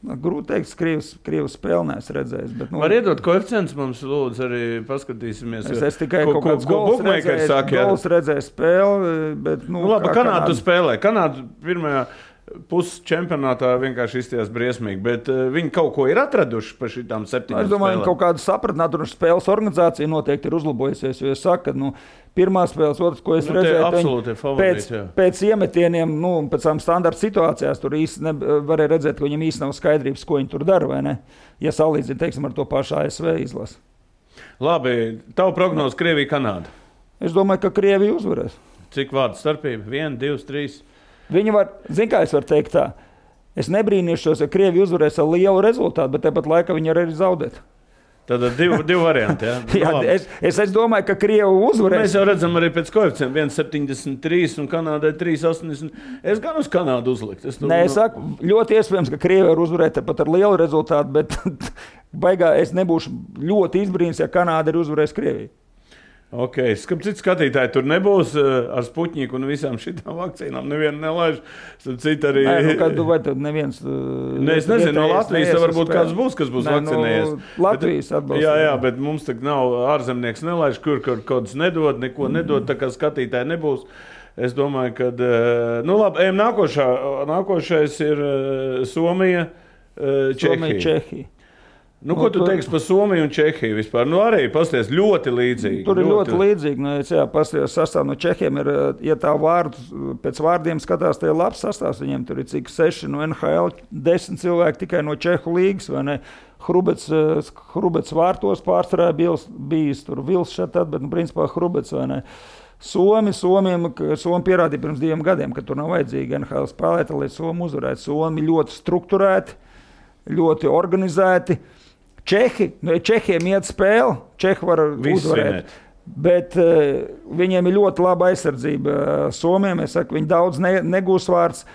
Grūti teikt, Krievs spēli neesmu redzējis. Bet, var iedot koeficients mums, lūdzu, arī paskatīsimies. Es tikai kaut kāds gols redzēju spēli, bet... labi, Kanādu spēlē. Kanādu pirmajā pusčempionātā vienkārši izstījās briesmīgi, bet viņi kaut ko ir atraduši par šitām 7 spēlēm. Es domāju, ka kaut kāda sapratnātuši spēles organizācija noteikti ir uzlabojusies, jo es saku, ka pirmā spēles, otrs, ko es redzēju, pēc iemetieniem, pēc tām standarta situācijās, tur īsti varēja redzēt, ka viņam īsti nav skaidrības, ko viņi tur dara, vai ne? Ja salīdzina, teiksim, ar to pašu ASV izlasi. Labi, tavu prognozi Krievija, Kanāda? Es domāju, ka Krievija uzvarēs. Cik vārdu starpība? 1, 2, 3? Viņi var, kā es varu teikt tā, es nebrīnīšos, ja Krievija uzvarēs ar lielu rezultātu, bet tāpat laikā viņi arī zaudēt. Tad divi varianti, jā? Jā, es domāju, ka Krievi uzvarēs. Mēs jau redzam arī pēc koeficientiem 1,73 un Kanādai 3,80. Es gan uz Kanādu uzlikt. Es saku, ļoti iespējams, ka Krievi var uzvarēt pat ar lielu rezultātu, bet baigā es nebūšu ļoti izbrīns, ja Kanāda ir uzvarējis Krieviju. Cits skatītāji tur nebūs ar Sputniku un visām šitām vakcīnām. Nevienu nelaiž. Arī... Vai tad neviens... Es nezinu, no Latvijas varbūt kāds būs, kas būs vakcinējies. Latvijas atbalsta. Jā, bet mums tak nav ārzemnieks nelaiž, kur kāds nedod, neko nedod, tā kā skatītāji nebūs. Es domāju, ka... labi, ejam nākošais ir Somija, Čehija. Ko tu teiksi par Somiju un Čehiju vispār? Arī pasties ļoti līdzīgi. Tur ir ļoti līdzīgi. Pasties sastāv no Čehiem ir, ja tā pēc vārdiem skatās, tie ir labs sastāvs. Viņiem tur ir cik 6 no NHL, 10 cilvēki tikai no Čehu līgas, vai ne? Hrubets vārtos pārsvarā bijis tur Vils šeit, bet, principā, Hrubets, vai ne? Somi pierādīja pirms 2 gadiem, ka tur nav vajadzīgi NHL spēlēt, lai Somi uzvarētu. Somi ļoti strukturēti, ļoti organizēti. Čehiem iet spēle, Čehi var uzvarēt, bet viņiem ir ļoti laba aizsardzība. Somiem, es saku, viņi daudz negūs vārds,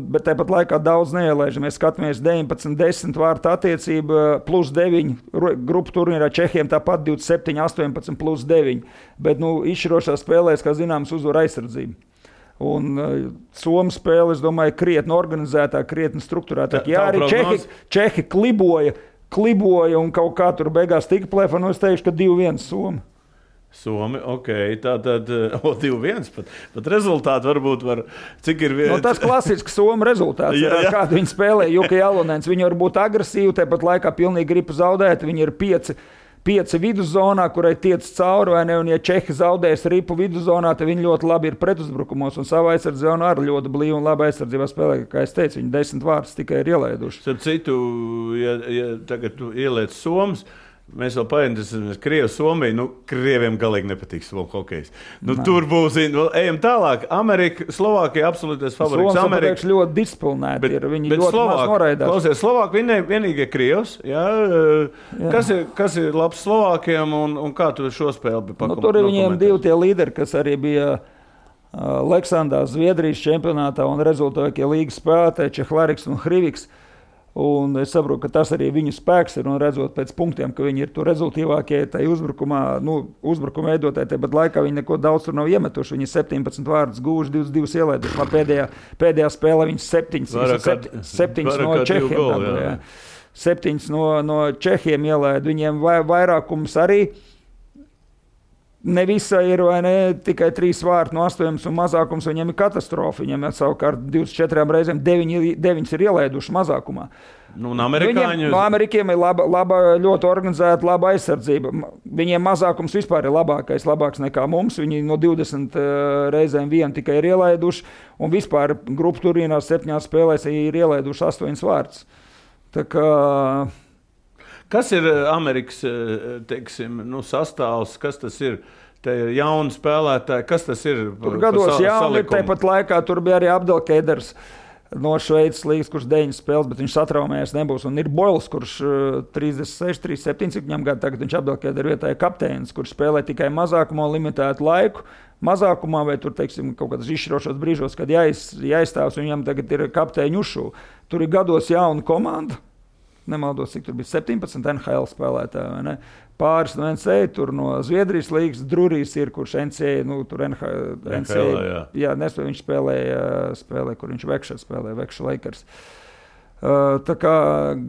bet tāpat laikā daudz neielaiž. Mēs skatāmies 19-10 vārtu attiecība plus 9 grupu turnīrā, Čehiem tāpat 27-18 plus 9, bet izšķirošā spēlēs, kā zināms, uzvar aizsardzība. Un Somu spēle, es domāju, krietni organizētāk, krietni strukturētāk. Jā, arī Čehi kliboja un kaut kā tur beigās tika plēfa, es teikšu, ka 2-1 Somi, tātad 2-1 pat rezultāti varbūt var, cik ir viens. Tas klasisks Somu rezultāts, ar kādu viņi spēlē, Juka Jalonens, viņi var būt agresīvi, tāpat laikā pilnīgi gribu zaudēt, viņi ir 5 viduszonā, kurai tiec cauri, vai ne, un ja Čehi zaudēs ripu viduszonā, tad viņi ļoti labi ir pretuzbrukumos, un savā aizsardzībā arī ļoti blīvi un labi aizsardzībā spēlē, kā es teicu, viņi 10 vārdus tikai ir ielaiduši. Starp citu, ja tagad tu ieliec Somas, mēs vēl painteresēsimies Krievu Somiju, Krieviem galīgi nepatīk Somu hokejs. Tur būs, ejam tālāk, Amerika, Slovākija absolūtais favorīts. Somas, pateikšu, ļoti disciplinēti ir, viņi ļoti maz noraidās. Klausies, Slovāki vienīgie Krievs, kas ir labs Slovākiem un kā tu šo spēli pakomentēsi? Tur ir viņiem 2 tie līderi, kas arī bija Leksandā, Zviedrijas čempionātā un rezultātie līgas spēlētāji, Čehlariks un Hriviks. Un es saprotu, ka tas arī viņu spēks ir, un redzot pēc punktiem, ka viņi ir tur rezultīvākie tajā uzbrukumā, uzbrukuma veidotāji, bet laikā viņi neko daudz tur nav iemetuši. Viņi 17 vārdus guvuši, 22 ielaiduši. Pēdējā spēlē viņi 7 no Čehiem. 7 no Čehiem ielaida. Viņiem vairākums arī. Ne visai ir, vai ne, tikai 3 vārti no 8 un mazākums, viņiem ir katastrofa. Viņiem ir savukārt 24 reizēm 9 ir ielaiduši mazākumā. Amerikiem ir laba, ļoti organizēta, laba aizsardzība. Viņiem mazākums vispār ir labāks nekā mums. Viņi no 20 reizēm 1 tikai ir ielaiduši, un vispār grupu turnīrā 7 spēlēs ir ielaiduši 8 vārtus. Tā kā... Kas ir Amerikas, teiksim, sastāvs, kas tas ir? Te ir jauni spēlētāji, kas tas ir? Tur gados jauni, tāpat laikā tur bija arī Abdelkeders no Šveices līgas, kurš 9 spēles, bet viņš satraumējies nebūs. Un ir Boils, kurš 36, 37, cik viņam gadu tagad viņš Abdelkeder vietā ir kapteinis, kurš spēlē tikai mazākumā limitētu laiku. Mazākumā vai tur, teiksim, kaut kādos izšķirošos brīžos, kad jāizstāvs, viņam tagad ir kapteiņu ušu. Tur ir gados jauna komanda. Nemaldos, cik tur bija 17 NHL spēlētāji, vai ne? Pāris no NCAA, tur no Zviedrijas līgas, Drurijs ir, kurš NCAA, tur NCAA, nespēja, viņš spēlē, kur viņš Vekša Lakers. Tā kā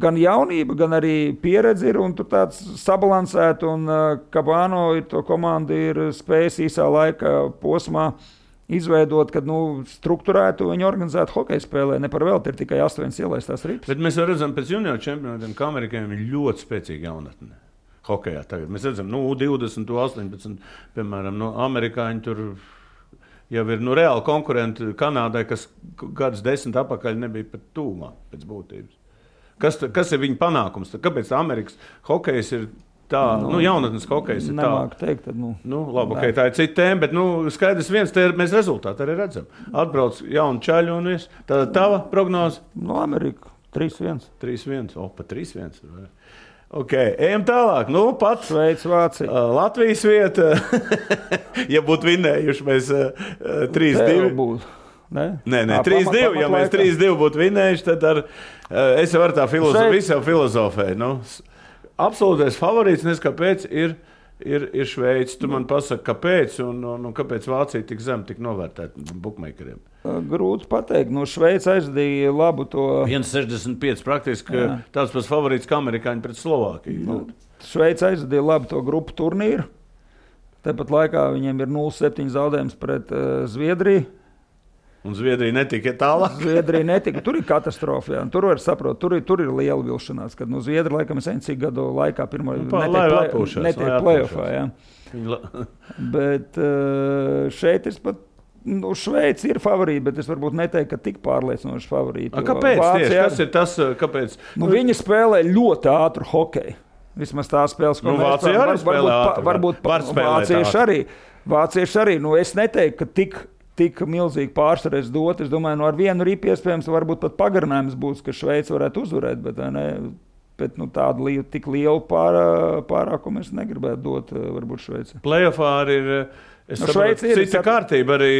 gan jaunība, gan arī pieredze ir, un tur tāds sabalansēt, un Kabano ir to komandu ir spējis īsā laika posmā izveidot, kad strukturētu viņu organizētu hokeja spēlē. Ne par velti ir tikai 8 ielaistās ripas. Bet mēs redzam pēc junioru čempionātiem, ka amerikāņiem ir ļoti spēcīga jaunatne hokejā tagad. Mēs redzam, 20, 18, piemēram, amerikāņi tur jau ir reāli konkurenti Kanādai, kas gadus 10 atpakaļ nebija pat tūmā pēc būtības. Kas ir viņa panākums? Kāpēc Amerikas hokejs ir tā, jaunatnes hokejs ir tā? Nemāku teikt, tad, labi, tā ir cita tēma, bet, skaidrs viens, mēs rezultātu arī redzam. Atbrauc jaunu čaļu un viss. Tāda tava prognoze? Amerika, 3-1. 3-1, pat 3-1. Ejam tālāk. Pats Šveica, Vācija. Latvijas vieta, ja būtu vinējuši, mēs 3-2. Nē, 3-2. Ja mēs 3-2 būtu vinējuši, tad es jau varu tā filozofēju. Absolūtais favorīts, kāpēc ir ir Šveice. Tu man pasaki, kāpēc un kāpēc Vācija tik zem tik novērtēta bukmeikeriem? Grūti pateikt. Šveice aizdīja labu to... 1,65 praktiski tāds pats favorīts kā amerikāņi pret Slovākiju. Šveice aizdīja labu to grupu turnīru. Tāpat laikā viņiem ir 0,7 zaudējums pret Zviedriju. Un Zviedrija netika tālāk. Zviedrija netika. Tur ir katastrofa. Jā. Tur var saprast, tur ir liela vilšanās. Kad Zviedrija laikam ir cik gadu laikā pirmo netiek play-offā. Bet šeit es pat, Šveice ir favorīti, bet es varbūt neteiktu, ka tik pārliecinoši favorīti. Kāpēc tieši? Kas ir tas, kāpēc? Viņi spēlē ļoti ātru hokeju. Vismaz tā spēles, ko Vācija arī spēlē ātru. Varbūt Vācieši arī. Es neteiktu, ka tik milzīgi pārsvarēs dot. Es domāju, ar vienu ripu iespējams varbūt pat pagarinājums būs, ka Šveice varētu uzvarēt, bet tādu tik lielu pārākumu es negribētu dot varbūt Šveice. Playoffā arī ir, cita kārtība arī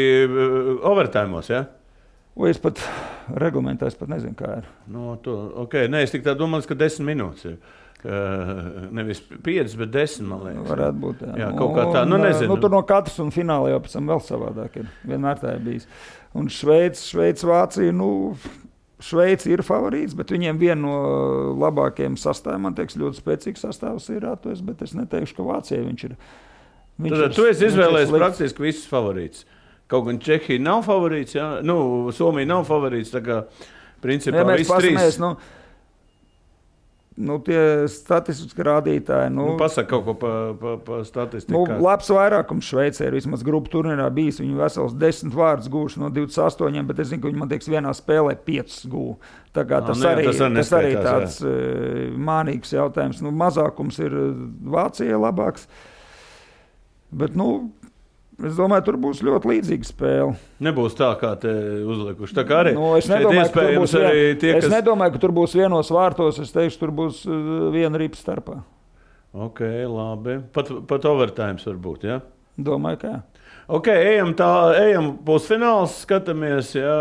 overtājumos, ja? Es pat reglamentā nezinu, kā ir. Es tik tā domāju, ka 10 minūtes ir. Nevis 5, bet 10, man liekas. Varētu būt, jā. Kaut kā tā, nezinu. Tur no katras un finālā jau pēc tam vēl savādāk ir. Vienmēr tā ir bijis. Un Šveice, Vācija, Šveice ir favorīts, bet viņiem viena no labākajiem sastāviem, man liekas, ļoti spēcīgs sastāvs ir atvēs, bet es neteikšu, ka Vācijai viņš ir. Tu esi izvēlējies praktiski visus favorītus. Kaut gan Čehija nav favorīts, jā. Somija nav favorīts, tā kā principā visi trīs. Tie statistiski rādītāji. Pasaka kaut ko pa statistiku. Labs vairākums Šveicē ir vismaz grupu turnīrā bijis. Viņi vesels 10 vārdus gūši no 28, bet es zinu, ka viņi, man liekas, vienā spēlē 5 gū. Tā kā tas arī tāds mānīgs jautājums. Mazākums ir Vācijai labāks. Bet, es domāju, tur būs ļoti līdzīga spēle. Nebūs tā, kā te uzlikuši. Tā kā arī es nedomāju, ka tur būs vienos vārtos. Es teikšu, tur būs viena ripa starpā. Ok, labi. Pat overtimes var būt, ja? Domāju, ka jā. Ok, ejam pusfināls, skatāmies, ja?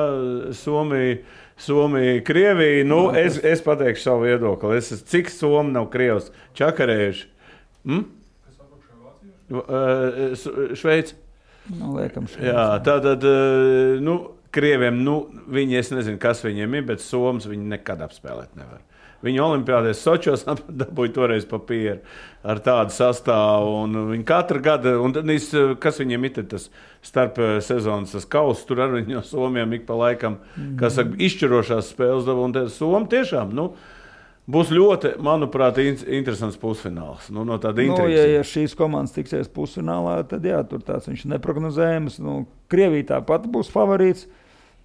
Somija, Krievija. Es pateikšu savu viedokli. Cik Somi nav Krievs čakarējuši? Šveice. Liekam Šveice. Jā, tātad, Krieviem, viņi, es nezinu, kas viņiem ir, bet Somas viņi nekad apspēlēt nevar. Viņi olimpiādēs Sočos dabūja toreiz papīru ar tādu sastāvu, un viņi katru gadu, un kas viņiem ir tas starp sezonas tas kauss, tur ar viņu no Somiem ik pa laikam, kas saka, izšķirošās spēles dabūja, un Somi tiešām, būs ļoti, manuprāt, interesants pusfināls. No tāda intrigas. Ja šīs komandas tiksies pusfinālā, tad jā, tur tāds viņš neprognozējams. Krievija tāpat būs favorīts.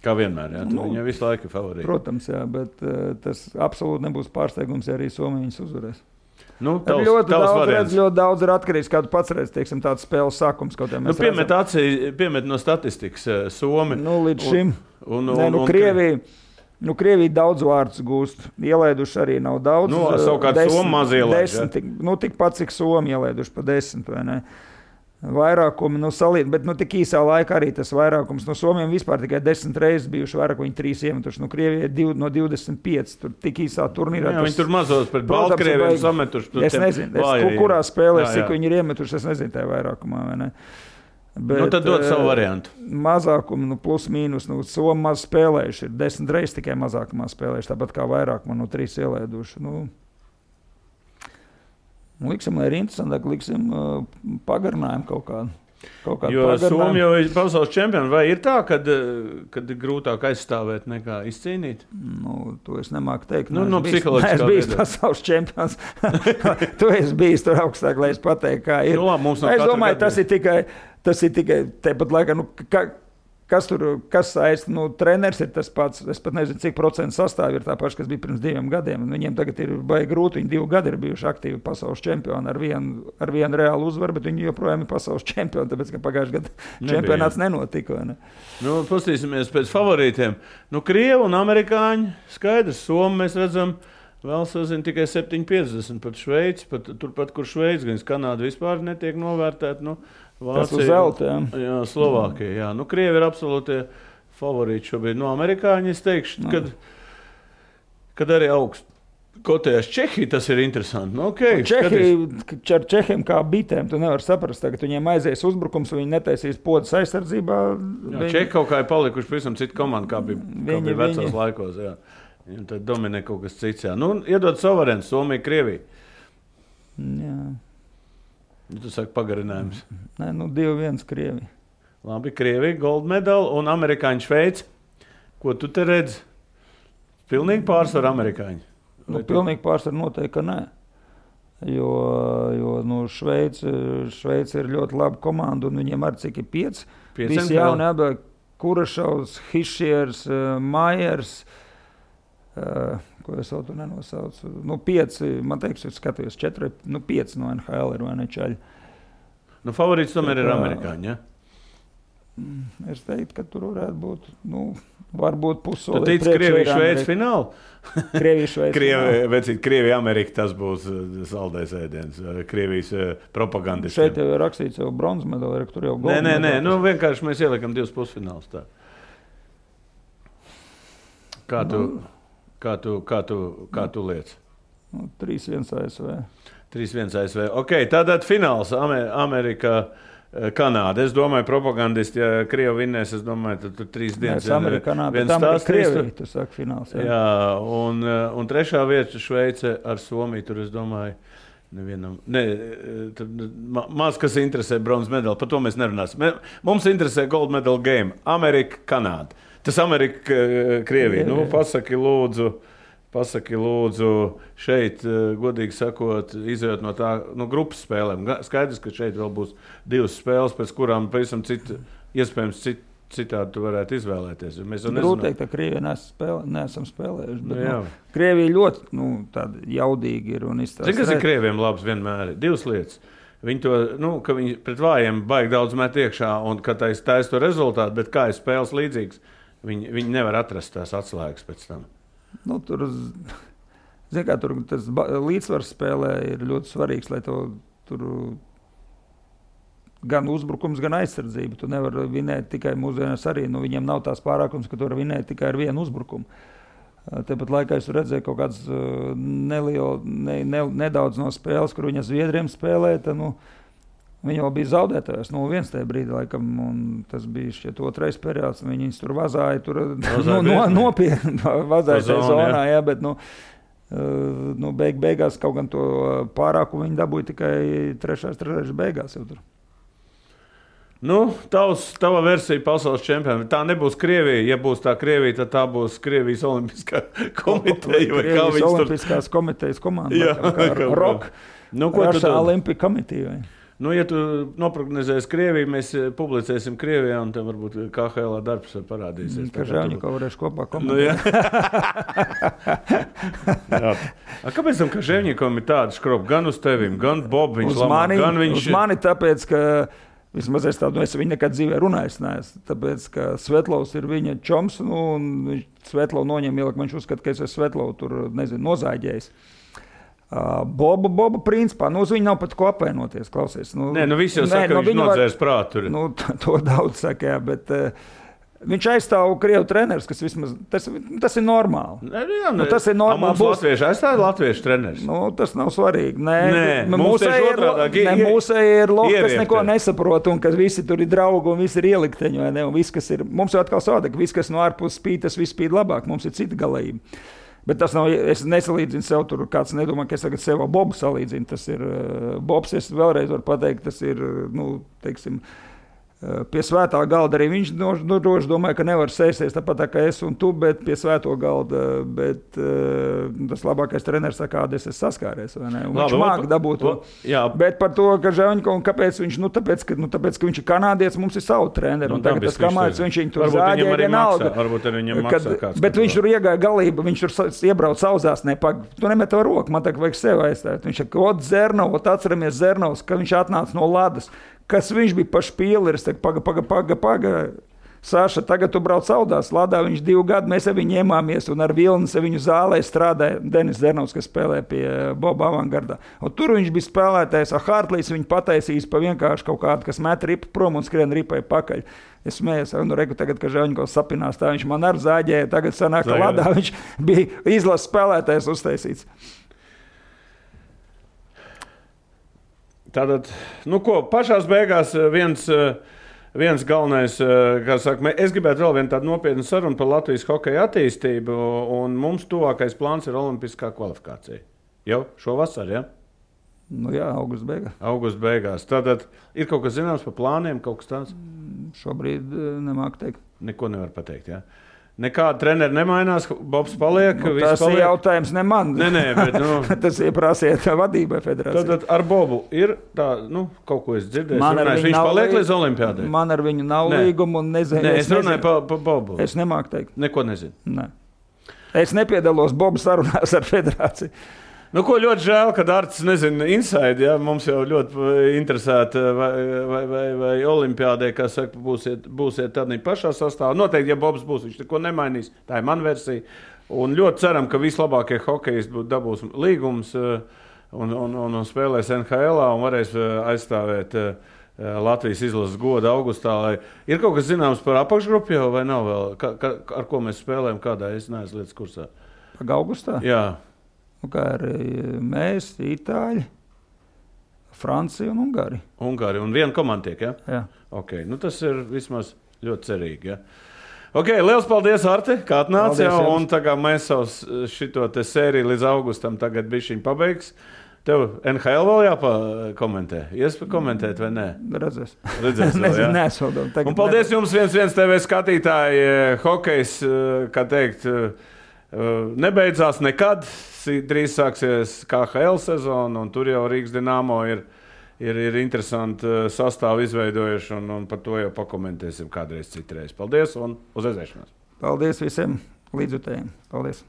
Kā vienmēr, jā. Viņa visu laiku ir favorīta. Protams, jā, bet tas absolūti nebūs pārsteigums, ja arī Somija viņus uzvarēs. Ļoti daudz ir atkarīgs, kā tu pats redz, teiksim, tāds spēles sākums. Piemet no statistikas Somi. Līdz šim. Krievija daudz vārdus gūst. Ielaiduši arī nav daudz. Savukārt Somi maz ielaiduši. Tikpat, cik Somi ielaiduši pa 10, vai ne? Vairākumi, salīdz, bet tik īsā laikā arī tas vairākums. Somiem vispār tikai 10 reizes bijuši vairāk, viņi 3 iemetuši. Krievijai no 25. Tur tik īsā turnīrā. Jā, viņi tur mazos pret Baltkrieviem sametuši. Es nezinu, kurā spēlē, cik viņi ir iemetuši, es nezinu tajā vairākumā, vai ne? Bet, tad dod savu variantu. Mazākumu, plus mīnus, Somi maz spēlējuši. Ir 10 reizes tikai mazākumā spēlējuši, tāpat kā vairākumā no 3 ielaiduši. Liksim, lai ir interesantāk, liksim pagarinājumu kaut kādu. Jo Somi jau ir pasaules čempioni. Vai ir tā, kad ir grūtāk aizstāvēt nekā izcīnīt? To es nemāku teikt. Psiholoģiskā es biju pasaules čempions. Tu esi bijis tur augstāk, lai es pateiktu, kā ir. Es domāju, tas ir tikai tepat laikā. Kas saista? Treneris ir tas pats. Es pat nezinu, cik procentu sastāvi ir tā paša, kas bija pirms 2 gadiem. Viņiem tagad ir baigi grūti. Viņi 2 gadi ir bijuši aktīvi pasaules čempioni ar vienu reālu uzvaru, bet viņi joprojām ir pasaules čempioni, tāpēc, ka pagājušajā gadā čempionāts nenotika. Ne? Pastīsimies pēc favorītiem. Krievi un amerikāņi skaidrs. Somi mēs redzam vēl sazina tikai 7,50 pat Šveici. Turpat, kur Šveici, gan Kanāda vispār netiek novērtēta. Vācija, zelta, jā, Slovākija. Jā. Krievi ir absolūtie favorīti šobrīd. Amerikāņi, es teikšu, kad arī Kotējas Čehija, tas ir interesanti. Nu, okay, ar Čehiem kā bitēm, tu nevar saprast, ka viņiem aizies uzbrukums, viņi netaisīs podas aizsardzībā. Čehi kaut kā ir palikuši pavisam citu komandu, kā bija vecos laikos. Jā. Un tad dominē kaut kas cits. Jā. Nu, iedod suverēns, Somija, Krievija. Jā. Tu saki pagarinājums. Nē, 2-1 Krievija. Labi, Krievija, gold medal un amerikāņu Šveici. Ko tu te redzi? Pilnīgi pārsvar amerikāņi. Pilnīgi pārsvar noteikti, ka nē. Jo Šveice ir ļoti laba komanda, un viņiem arī cik ir 5. Visi jauni atbēg, Kurašovs, Hišiers, Majers, ko es vēl tu nenosaucu. 5, man teiks, es skatījos 4, 5 no NHL ir vai ne čaļi. Favorīts tomēr ir amerikāņi, ja? Es teiktu, ka tur varētu būt, varbūt pusoli. Tu tici Krievija Šveici finālu? Krievija Šveici. Krievija Amerika, tas būs saldais ēdiens. Krievijas propagandisti. Šeit jau ir rakstīts jau bronzas medaļa, tur jau gold medaļa. Nē, vienkārši mēs ieliekam 2 pusfinālus tā. Kā tu liec? 3-1 ASV. 3-1 ASV. Ok, tātad fināls Amerika. Kanāda. Es domāju, propagandisti, ja Krievi vinnēs, es domāju, tad 3 dienas. Amerika, Kanāda, bet Amerika, Krievija, tu saki fināls. Jā, un 3. vieta Šveice ar Somiju, tur es domāju, nevienam, maz kas interesē bronzas medaļu, par to mēs nerunāsim. Mums interesē gold medal game, Amerika, Kanāda. Tas Amerika, Krievija. Pasaki lūdzu šeit, godīgi sakot, izējot no tā grupas spēlēm. Skaidrs, ka šeit vēl būs 2 spēles, pēc kurām pavisam iespējams citādi tu varētu izvēlēties. Grūti teikt, ka Krievija neesam spēlējuši, bet Krievija ļoti tāda jaudīgi ir un izstāsta. Zini, kas ir Krieviem labs vienmēr? 2 lietas. Viņi to, ka viņi pret vājiem baigi daudz met iekšā un ka taisa to rezultātu, bet kā ir spēles līdzīgs, viņi nevar atrast tās atslēgas pēc tam. Tur tas līdzsvars spēlē ir ļoti svarīgs, lai tur gan uzbrukums, gan aizsardzība. Tu nevari vinēt tikai mūsdienās arī. Viņiem nav tās pārākums, ka tu vari vinēt tikai ar vienu uzbrukumu. Tāpat laikā es redzēju kaut kādas nedaudz no spēles, kur viņa Zviedriem spēlē. Viņi jau bija zaudētājs 0-1 tajā brīdī, laikam, un tas bija šķiet 2. periods. Viņi tur vazāja, nopietni vazāja tajā zonā, jā, bet beigās kaut gan to pārākumu viņi dabūja tikai 3. beigās jau tur. Tava versija pasaules čempionā. Tā nebūs Krievija. Ja būs tā Krievija, tad tā būs Krievijas Olimpiskā komiteja. Krievijas Olimpiskās komitejas komanda. ROK, Russia Olympic Committee. Ja tu noprognozēsi Krieviju, mēs publicēsim Krievijā, un tev varbūt KHL darbs parādīsies. Kažēvņiko varēšu kopā komentēt. Kāpēc tam Kažēvņikom ir tāda škropa? Gan uz tevim, gan Bob viņš lamā, gan viņš... Uz mani tāpēc, ka vismaz es viņu nekad dzīvē runājis neesmu. Tāpēc, ka Svetlovs ir viņa čoms, un Svetlovu noņem ielikt, viņš uzskata, ka es esmu Svetlovu tur, nozāģējis. Boba principā, uz viņu nav pat ko apvainoties, klausies. Visi jau saka, ka viņš nodzērs prātu. To daudz saka, jā, bet viņš aizstāv Krievu treneris, kas vismaz, tas ir normāli. Tas ir normāli. Mums latvieši aizstāv latviešu treneris? Tas nav svarīgi. Mūsēji ir lohi, kas neko nesaprot, un ka visi tur ir draugi, un visi ir ielikteņi, vai ne, un viss, kas ir, mums jau atkal savādāk, viss, kas no ārpus spīd, tas viss spīd labāk, mums ir cita galība. Bet tas nav, es nesalīdzinu sev tur, kāds nedomā, ka es tagad sev ar Bobu salīdzinu. Tas ir Bobs, es vēlreiz varu pateikt, tas ir, teiksim, pie svētā galda arī viņš droši domāja, ka nevar sēsties tāpat tā kā es un tu, bet pie svēto galda, bet tas labākais treneris, kāda es saskāries, vai ne? Un viņš māk dabūt to. Bet par to, ka Žēvņikovs, kāpēc viņš, tāpēc, ka viņš ir kanādietis, mums ir savu treneri, un tagad tas kamāts, viņš viņu tur zāģēja vienalga. Varbūt arī viņam maksā kāds. Bet viņš tur iegāja galība, viņš tur iebrauc sauzās, tu nemet to roku, man tagad vajag sev aizstāt. Viņš saka, atceramies Zernovs, ka viņš atnāca no Ladas. Kas viņš bija pa špīleris, paga. Saša, tagad tu brauc Audās Ladā, viņš 2 gadu, mēs ar viņu ņēmāmies, un ar Vilnis viņu zālē strādāja Denis Zernovs, kas spēlē pie Boba Avangardā. Un tur viņš bija spēlētājs, ar Hartlīs viņu pataisījis pa vienkārši kaut kādu, kas met ripu prom un skrien ripai pakaļ. Es smējos, nu reku tagad, ka Žaņkovs sapinās, tā viņš man ar zāģēja, tagad sanāk, ka Ladā viņš bija izlases spēlētājs uztaisīts. Tātad, nu ko, pašās beigās viens galvenais, kā saka, es gribētu vēl vienu tādu nopietnu sarunu par Latvijas hokeja attīstību, un mums tuvākais plāns ir olimpiskā kvalifikācija. Jau šovasar, ja? Nu jā, augusta beigās. Augusta beigās. Tātad ir kaut kas zināms par plāniem, kaut kas tāds? Šobrīd nemāku teikt. Neko nevar pateikt, jā? Ja? Nekāda treneri nemainās, Bobs paliek. Nu, tas ir jautājums ne man. Nē, bet tas ir prasiet vadībai federācijai. Tad ar Bobu ir tā, kaut ko es dzirdēju. Viņš paliek līdz olimpiādai. Man ar viņu nav līguma un nezinu. Nē, es runāju par Bobu. Es nemāku teikt. Neko nezinu. Nē. Es nepiedalos Bobu sarunās ar federāciju. Nu, ko ļoti žēl, ka Arts nezina inside, ja? Mums jau ļoti interesēta, vai olimpiādē, kā saka, būsiet tādā pašā sastāvā. Noteikti, ja Bobs būs, viņš neko nemainīs. Tā ir mana versija. Un ļoti ceram, ka vislabākie hokejisti dabūs līgums un spēlēs NHL un varēs aizstāvēt Latvijas izlases godu augustā. Ir kaut kas zināms par apakšgrupu jau vai nav vēl? Ar ko mēs spēlējam, kādā es neesmu lietas kursā? Pag augustā? Jā. Kā arī mēs, Itāļi, Francija un Ungārija. Ungārija un viena komanda tiek, ja? Jā. Okay. Nu, tas ir vismaz ļoti cerīgi, ja? Ok, liels paldies, Arti, kā atnāci jau, un tagad mēs savus šito te sēriju līdz augustam tagad bišķiņ pabeigs. Tev NHL vēl jāpakomentē? Iespēj komentēt vai nē? Redzēs vēl, jā? Nesodam. Un paldies jums 1 TV skatītāji, hokejs, kā teikt, nebeidzās nekad, drīz sāksies KHL sezona, un tur jau Rīgas Dinamo ir interesanti sastāvu izveidojuši, un par to jau pakomentēsim kādreiz citreiz. Paldies un uz redzēšanos! Paldies visiem līdzjutējiem! Paldies!